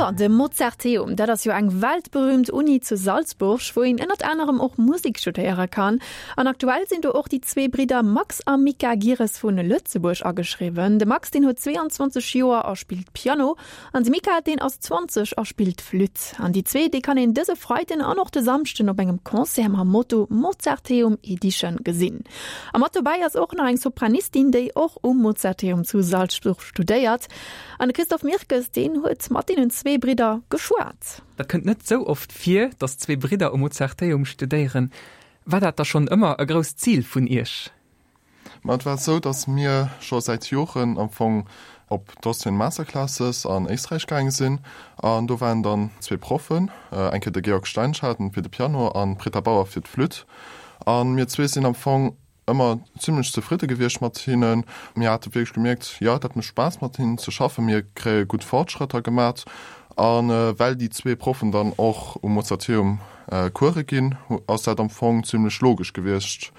Jo, de Mozarteum, dat ass jo eng weltberühmt Uni zu Salzburg, wou een ënnert anerem och Musek studéiere kann. An aktuell sinn do och déi zwee Bridder Max a Mika Gires vu Lëtzebuerg ageschriwwen. De Max, deen huet 22 Joer a spillt Piano, an de Mika, deen ass 20 a spillt Flütt. An déi zwee, déi kann een dëse Freiden an och de Samschden op engem Concert mam Motto Mozarteum Edition gesinn. A mat dobäi ass och nach eng Sopranistin, déi och um Mozarteum zu Salzburg studéiert. An de Christophe Mirkes, deen huet mat deenen zwee Bridder geschwat. Dat kënnt net sou oft vir, datt zwee Bridder um Mozarteum studéieren. War dat da schonn ëmmer e grousst Zil vun Iech? Ma et war sou, datt mir scho säit Joren am Fong op d'Austrian Masterclasses an Éisträich gaange sinn. An do waren dann zwee Proffen, eng Kéier de Georg Steinschaden fir de Piano an d'Britta Bauer fir d'Flütt. A mir zwee sinn am Fong ëmmer zimlech zefridde gewiescht mat hinnen. Mir hate wierklech gemierkt, jo, dat mécht Spaass mat hinnen ze schaffen, mir kréie gutt Fortschrëtter gemat. A well déi zwee Proffen dann och um Mozarteum Course ginn, ass dat am Fong zimlech logesch gewiescht,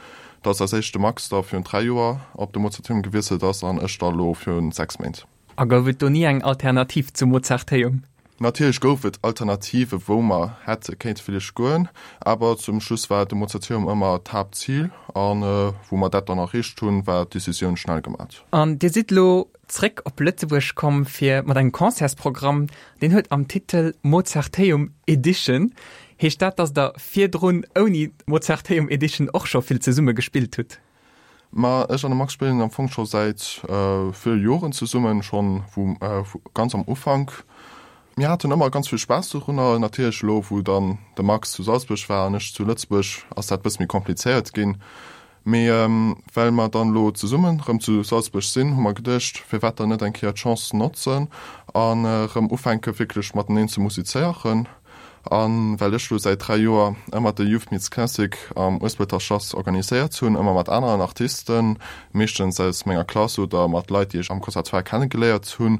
datt als éischt de Max da virun 3 Joer op de Mozarteum gewiesselt ass an ech da lo virun 6 Méint. A gouf et do ni eng Alternativ zum Mozarteum? Natierlech gouf et Alternative wou mer hätte kéinte villäicht goen, awer zum Schluss war de Mozarteum ëmmer d'Haaptzil an wou mer dat dann erreecht hunn, war d'Decisioun schnell gemat. An Dir sidd elo zréck op Lëtzebuerg komm fir mat engem Concertsprogramm, deen huet am Titel Mozarteum Edition. Heescht dat, datt Der virdrun ouni Mozarteum Edition och scho vill zesumme gespillt hutt? Ma ech an de Max spillen am Fong scho säit ville Joren zesummen, schonn vu ganz am Ufank. Mir haten ëmmer ganz vill Spaass dorunner. Natierlech elo wou dann de Max zu Salzburg war an ech zu Lëtzebuerg, ass dat bësse méi komplizéiert ginn. Mee well mer dann elo zesummen erëm zu Salzburg sinn, hu mer geduecht, firwat dann net eng Kéier d'Chance notzen an erëm ufänke wierklech mateneen ze musizéieren. A well ech lo säit 3 Joer ëmmer de Youth Meets Classic am Uespelter Schlass organiséiert hunn, ëmmer mat aneren Artisten, meeschtens aus menger Klass oder mat Leit, déi ech am Conservatoire kennegeléiert hunn,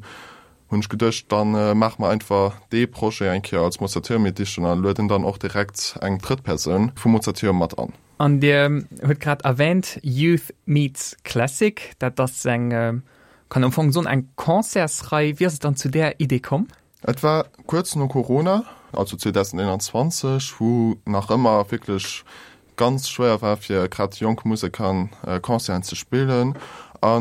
hunn ech geduecht, da maache mer einfach dee Projet eng Kéier als Mozarteum Edition a lueden dann och direkt eng drëtt Persoun vum Mozarteum mat an. An Dir hutt grad erwähnt Youth Meets Classic, dat ass eng, kann am Fong soen, eng Concertsrei. Wéi ass et dann zu där Idee komm? Et war kuerz no Corona, also 2021, wou nach ëmmer wierklech ganz schwéier war fir grad jonk Museker Concerten ze spillen. A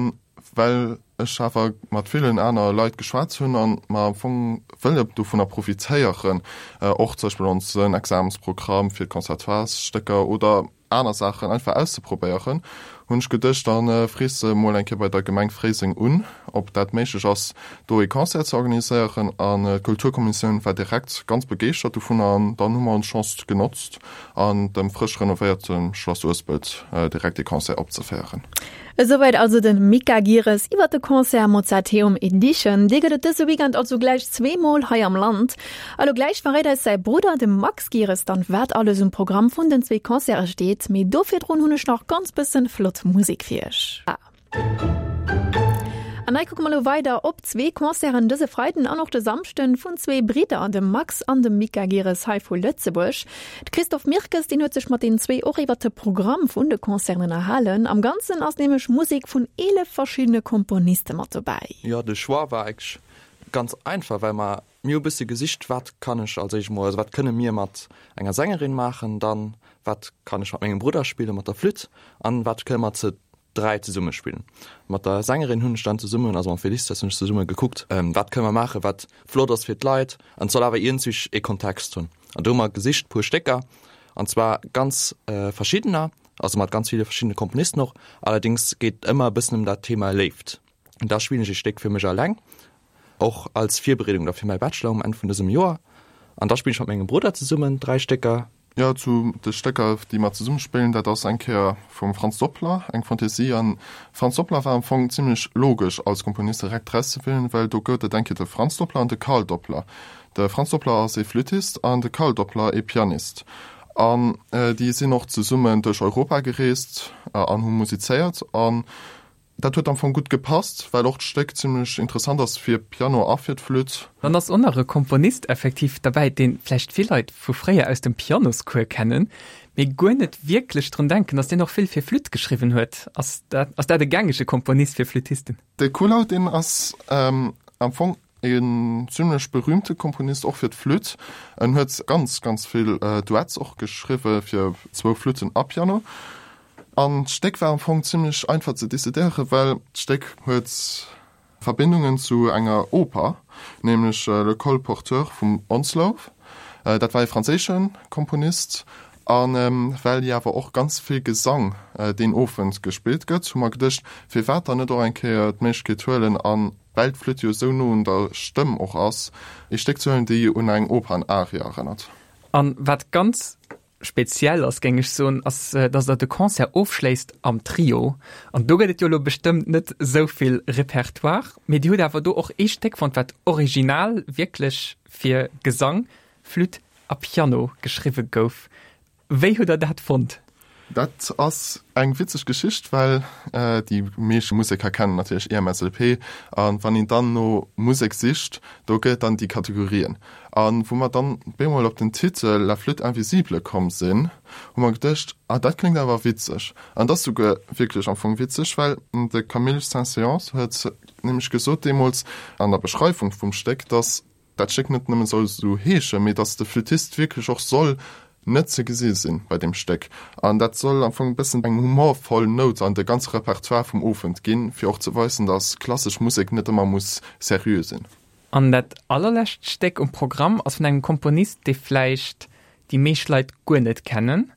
well ech awer mat villen aner Leit geschwat hunn an mer am Fong wëlle dovunner profitéieren, och zum Beispill onsen Examensprogramm fir d'Conservatoiresstécker oder aner Saachen einfach auszeprobéieren, hunn ech geduecht, da frees de mol eng Kéier bei der Gemeng Fréiseng un, ob dat méiglech ass, do ee Concert ze organiséieren. An d'Kulturkommissioun war direkt ganz begeeschtert dovunner an dann hu mer ons Chance genotzt an dem frësch renovéierte Schlass Uespelt direkt ee Concert opzeféieren. Esouwäit also de Mika Gires iwwer de Concert Mozarteum Edition. Dee gëtt et dëse Weekend also gläich zweemol hei am Land. A lo gläich verréit eis säi Brudder, de Max Gires, dann wat alles um Programm vun den zwee Concerte steet. Mee do virdrun hunn ech nach ganz bëssen flott Musek fir iech. An hei kucke mer lo weider op zwee Concerten dëse Freiden an och de Samschden vun zwee Bridder, dem Max an dem Mika Gires hei vu Lëtzebuerg. De Christophe Mirkes, deen huet sech mat deenen zwee och iwwert de Programm vun de Concerten ënnerhalen. Am Ganzen ass nämlech Musek vun 11 verschiddene Komponiste mat dobäi. Jo, de Choix war eigentlech ganz einfach, well mer, mir hu bësse gesicht, wat kann ech als éischt emol, also wat kënne mir mat enger Sängerin maachen, dann wat kann ech mat mengem Brudder spillen, mat der Flütt, an wat kënne mer ze 3 zesumme spillen. Mat der Sängerin hunn ech dann zesummen, also mam Felicitas hunn ech zesumme gekuckt, wat kënne mer maachen, wat flott ass fir d'Leit an et soll awer iergendwéi ee Kontext hunn. An do hu mer gesicht puer Stécker, an zwar ganz verschiddener, also mat ganz ville verschiddene Komponisten och. Allerdéngs geet et ëmmer e bëssen ëm dat Thema Léift. Da spillen ech ee Stéck fir mech alleng Och als Virbereedung da fir mäi Bachelor um Enn vun dësem Joer. An da spillen ech mat mengem Brudder zesummen 3 Stécker. Jo, zu de Stécker, déi mer zesumme spillen, dat ass eng Kéier vum Franz Doppler, eng Fantaisie. An Franz Doppler war am Fong zimlech logesch als Komponist direkt erauszewielen, well do gouf et eng Kéier de Franz Doppler an de Karl Doppler. De Franz Doppler ass ee Flüttist an de Karl Doppler ee Pianist. An déi sinn och zesummen duerch Europa gereest an hu musizéiert. An Dat huet am Fong gutt gepasst, well och d'Stéck zimlech interessant ass fir Piano a fir d'Flütt. Dann ass och nach e Komponist effektiv derbäi, dee vläicht vill Leit vu fréier aus dem Pianoscours kennen, mee guer net wierklech drun denken, datt deen och vill fir Flütt geschriwwen huet. Ass dat, ass dat e gängege Komponist fir Flüttisten? De Kuhlau, deen ass am Fong. En zimlech berühmte Komponist och fir d'Flütt. En huet ganz, ganz vill Duets och geschriwwe fir zwou Flütten a Piano. An d'Stéck war am Fong zimlech einfach ze decidéieren, well d'Stéck huet Verbindungen zu enger Oper, nämlech Le Colporteur vum Onslow. Dat war ee franséische Komponist. A well jo awer och ganz vill Gesang deen Owend gespillt gëtt, hu mer geduecht, firwat dann net och eng Kéier d'Méiglechkeet huelen an, well d'Flütt jo esou no un der Stëmm och ass, ee Stéck ze huelen, déi un eng Opernarie erënnert. A wat ganz speziell ass, géing ech soen, ass, dass Der de Concert ofschléisst am Trio. An do gëtt et jo elo bestëmmt net esou vill Repertoire, mee Dir hutt awer do och ee Stéck fonnt, wat original wierklech fir Gesang, Flütt a Piano geschriwwe gouf. Wéi hutt Der dat fonnt? Dat ass eng witzeg Geschicht, well déi meescht Museker kennen natierlech IMSLP. A wann een dann no Musek sicht, do gëtt et dann déi Kategorien. A wou mer dann bemol op den Titel La flûte invisible komm sinn, hu mer geduecht, ah dat kléngt awer witzeg. An et ass souguer wierklech am Fong witzeg, well de Camille Saint-Saëns huet nämlech gesot deemools an der Beschreiwung vum Stéck, datt dat Stéck net nëmme soll esou heeschen, mee datt de Flüttist wierklech och soll net ze gesi sinn bei deem Stéck. An dat soll am Fong e bëssen eng humorvoll Nout an de ganze Repertoire vum Owend ginn, fir och ze weisen, datt klassesch Musek net ëmmer muss seriö sinn. An dat allerlescht Stéck um Programm ass vun engem Komponist, dee vläicht déi meescht Leit guer net kennen.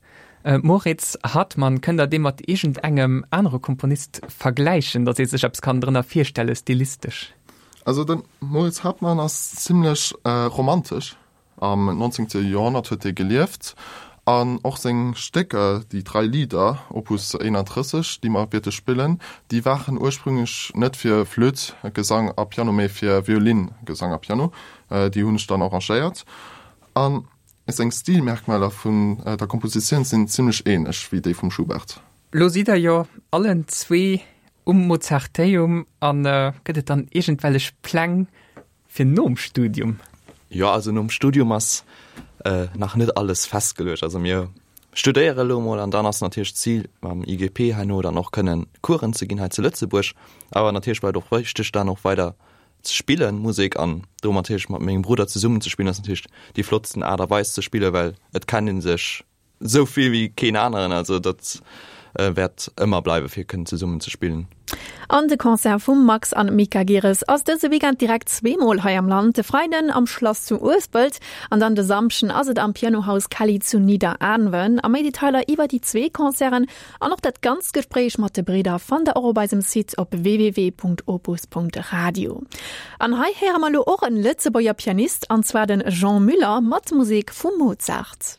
Moritz Hartmann, kënnt der dee mat iergendengem anere Komponist vergläichen, datt ee sech eppes kann drënner virstelle stilistesch? Also de Moritz Hartmann ass zimlech romantesch. Am 19. Joerhonnert huet hie gelieft an och seng Stécker, déi Drei Lieder, Opus 31, déi mer wäerte spillen, déi waren ursprünglech net fir Flütt, Gesang a Piano, mee fir Violin, Gesang a Piano. Déi hunn ech dann arrangéiert. A seng Stilmerkmaler vun der Kompositioun sinn zimlech änlech wéi déi vum Schubert. Lo sidd der jo allen zwee um Mozarteum an gëtt et dann iergendwellech Pläng fir nom Studium? Jo, also nom Studium ass nach net alles festgeluecht. Also mir studéiere elo mol an dann ass natierlech d'Zil mam IGP herno dann och kënnen Coursen ze ginn hei zu Lëtzebuerg. Awer natierlech bleift och wichteg dann och weider ze spillen Musek an do natierlech mat mengem Brudder zesummen ze spillen ass natierlech déi flottsten Aart a Weis ze spillen, well et kennt ee sech Sou vill wéi keen aneren, also dat wäert ëmmer bleiwe fir kënnen zesummen ze spillen. An de Concert vum Max an Mika Gires ass dëse Weekend direkt zweemol hei am Land, de Freiden am Schlass zu Uespelt an dann de Samschden ass et am Pianohaus Kelly zu Nidderaanwen. A méi Detailer iwwer déi zwee Concerten an och dat ganzt Gespréich mat de Bridder fannt der och op eisem Site op www.opus.radio. An hei héiere mer elo och en Lëtzebuerger Pianist, an zwar den Jean Müller mat Musek vum Mozart.